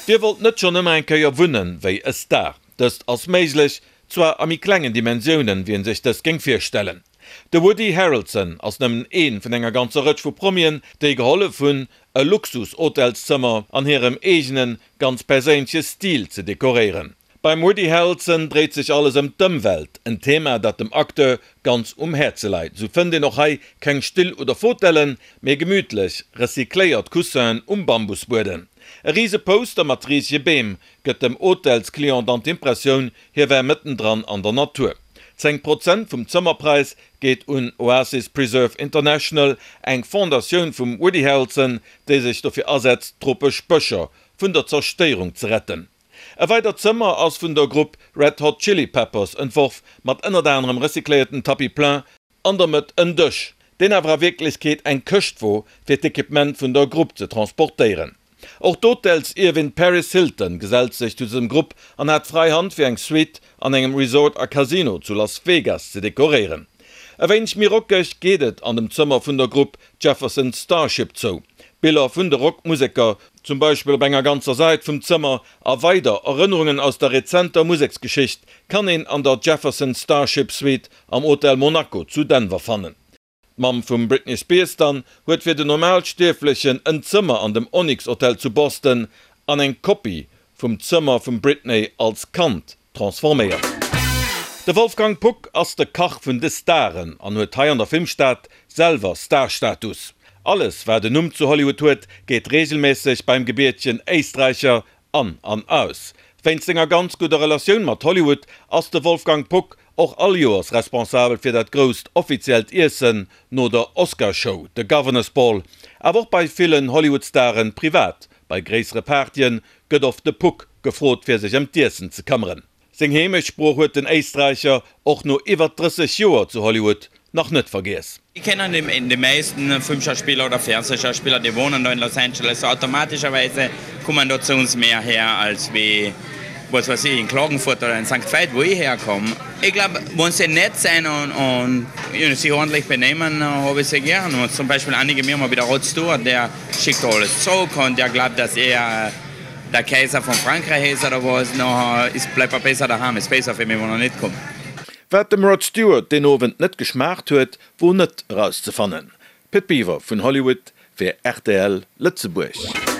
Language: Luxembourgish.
Dir wollt net schonn ëmmer eng Kéier wunnen wéi e Star? Dëst ass méiglech, zwar a méi klengen Dimensiounen, wéi en sech dëst géing virstellen. De Woody Harrelson ass nëmmen ee vun enger ganzer Rëtsch vu Promien, déi gehollef hunn, e Luxus-Hotelszëmmer an hirem eegenen, ganz perséinleche Stil ze dekoréieren. Beim Woody Harrelson dréit sech alles ëm d'Ëmwelt, en Thema, dat dem Acteur ganz um Häerze leit. Sou fënnt een och hei keng Still oder Fotellen, mee gemütlech, recycléiert Coussinen um Bambusbuedem. E rise Poster mat risege Beem gëtt dem Hotelsclient dann d'Impressioun, hie wär mëttendran an der Natur. 10 Prozent vum Zëmmerpräis geet un Oasis Preserve International, eng Fondatioun vum Woody Harrelson, déi sech dofir asetzt, tropesch Bëscher vun der Zerstéierung ze retten. E weidert Zëmmer ass vun der Grupp Red Hot Chili Peppers entworf, mat ënnert anerem recycléierten Tapis plein, an der Mëtt en Dësch, deen awer a Wierklechkeet eng Këscht wor, fir d'Equipement vun der Grupp ze transportéieren. Och d'Hotelsierwin Paris Hilton gesellt sech zu dësem Grupp an hat fräi Hand fir eng Suite an engem Resort a Casino zu Las Vegas ze dekoréieren. E wéineg méi rockeg geet et an dem Zëmmer vun der Grupp Jefferson Starship zou. Biller vun de Rockmuseker, zum Beispill op enger ganzer Säit vum Zëmmer, a weider Erënnerungen aus der rezenter Museksgeschicht kann een an der Jefferson Starship Suite am Hotel Monaco zu Denver fannen. D'Mamm vum Britney Spears dann huet fir den Normalstierflechen en Zëmmer an dem Onyx Hotel zu Boston an eng Kopie vum Zëmmer vum Britney als Kand transforméiert. De Wolfgang Puck ass de Kach vun de Staren an huet hei an der Filmstad selwer Starstatus. Alles wat en Numm zu Hollywood huet, geet reegelméisseg beim gebiertegen Éisträicher an an aus. Wéinst senger ganz gudder Relatioun mat Hollywood ass de Wolfgang Puck och all Joers responsabel fir dat grousst offiziellt Iessen no der Oscarshow, de Governor's Ball. Awer och bei villen Hollywood-Staren privat, bei gréissere Partyen, gëtt oft de Puck gefrot fir sech ëm d'Iessen ze këmmeren. Seng Heemechtssprooch huet den Éisträicher och no iwwer 30 Joer zu Hollywood nach net vergiess. Ich kenne die meisten Filmschauspieler oder Fernsehschauspieler, die wohnen da in Los Angeles, so automatischerweise kommen da zu uns mehr her als wie was weiß ich, in Klagenfurt oder in Sankt Veit, wo ich herkomme. Ich glaube, wenn sie nett sind und, und you know, sich ordentlich benehmen, habe ich sie gern. Und zum Beispiel einige mir mal wieder Rod Stewart, der schickt alles zurück und der glaubt, dass er der Kaiser von Frankreich ist oder was, nachher ist, bleibt er besser daheim, ist besser für mich, wenn er nicht kommt. Wat dem Rod Stewart deen Owend net geschmaacht huet, wor net erauszefannen. Pit Biwer vun Hollywood fir rtl Lëtzebuerg.